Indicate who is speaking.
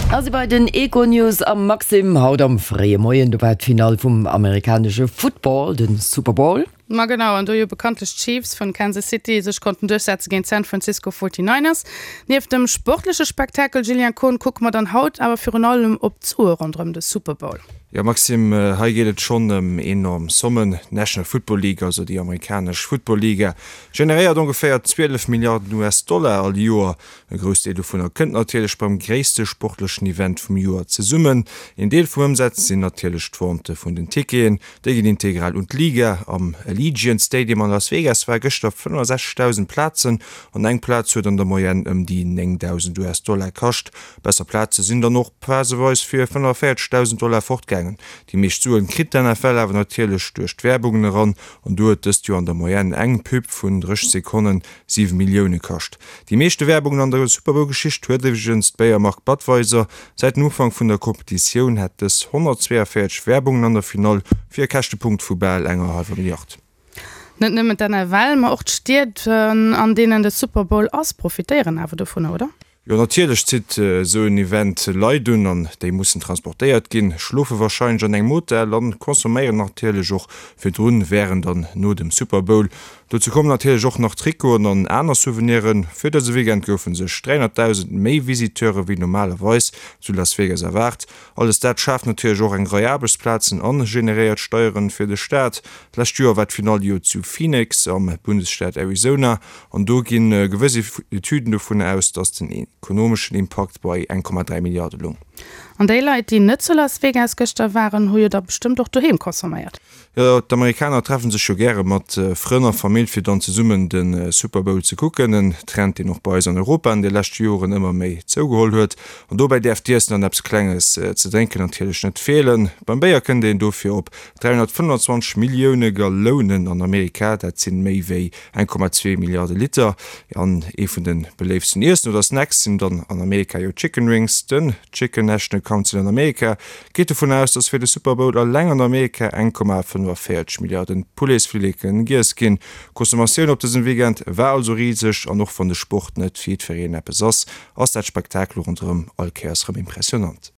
Speaker 1: A si bei den Econews am Maxim. Haut am fréie Moien, do war d'Finall vum amerikanesche Football, de Super Bowl.
Speaker 2: Ma genau, an do jo bekanntlech d'Chiefs vun Kansas City sech konnten duerchsetze géint d'San Francisco 49ers. Nieft dem sportleche Spektakel, Julien Kohn, kucke mer dann haut awer virun allem op d'Sue ronderëm de Super Bowl.
Speaker 3: Jo Maxime, hei geet et schonn ëm enorm Sommen. D'National Football League, also déi amerikanesch Football-Liga, generéiert ongeféier 12 Milliarden US-Dollar all Joer. E Groussdeel dovunner kënnt natierlech beim gréisste sportlechen Event vum Joer zesummen. Een Deel vum Ëmsaz sinn natierlech d'Vente vun den Ticketen. Déi ginn integral un d'Liga. Am Allegiant Stadium an Las Vegas ware gëschter 65.000 Plazen an eng Plaz huet an der Moyenne ëm déi 9.000 US-Dollar kascht. Besser Plaze sinn dann och phaseweis fir 45.000 Dollar fortgaangen. Déi meescht Suen kritt d'NFL awer natierlech duerch d'Werbungen eran an do huet dëst Joer an der Moyenne eng Pub vun 30 Sekonnen 7 Millioune kascht. Déi meeschte Werbungen an der Super-Bowl-Geschicht huet iwwregens d'Béiermark Budweiser. Säit dem Ufank vun der Kompetitioun hätt dës 142 Werbungen an der Finall fir e Käschtepunkt vu bal enger hallwer Milliard.
Speaker 2: Net nëmmen d'NFL, ma och d'Stied an deenen de Super Bowl ass, profitéieren awer dovunner, oder?
Speaker 3: Jo natierlech zitt esou en Event Leit un an déi mussen transportéiert ginn, schlofe warscheinlech an engem Hotel an consomméieren natierlech och virdrun, wärend an no dem Super Bowl. Dozou kommen natierlech och nach Trikoten an aner Souveniren. Fir dëse Weekend goufe sech 300.000 méi Visiteure wéi normalerweis zu Las Vegas erwaart. Alles dat schaaft natierlech och eng Rei Aarbechtsplazen an generéiert Steieren fir de Staat. D'lescht Joer war d'Finall jo zu Phoenix am Bundesstaat Arizona an do gi gewëss Etüden dovun aus, datt den ekonomeschen Impakt bei 1,3 Milliarde loung.
Speaker 2: An déi Leit, déi net zu Las Vegas gëschter waren, hu jo da bestëmmt och doheem consomméiert.
Speaker 3: Jo, d'Amerikaner treffen sech jo gäre mat Frënn a Famill fir dann zesummen de Super Bowl ze kucken. En Trend deen och bei eis an Europa an de leschte Joren ëmmer méi zougeholl huet. An dobäi däerf d'Iessen an eppes Klenges ze drénken natierlech net feelen. Beim Béier kënnt een dofir op 325 Millioune Gallounen an Amerika, dat sinn méi wéi 1,2 Milliarde Liter. An ee vun de beléiftsten Iessen oder Snacks sinn dann an Amerika jo Chicken Wings. Den Chicken National Council an Amerika Geet dovun aus, dass fir de Super Bowl eleng an Amerika 1,45 Milliarden Pouletsfilleken giess ginn. D'Consommatioun op dësem Weekend war also riseg an och wann de Sport net fir jiddwereen eppes ass, ass dat Spektakel ronderëm all Kéiers rëm impressionant.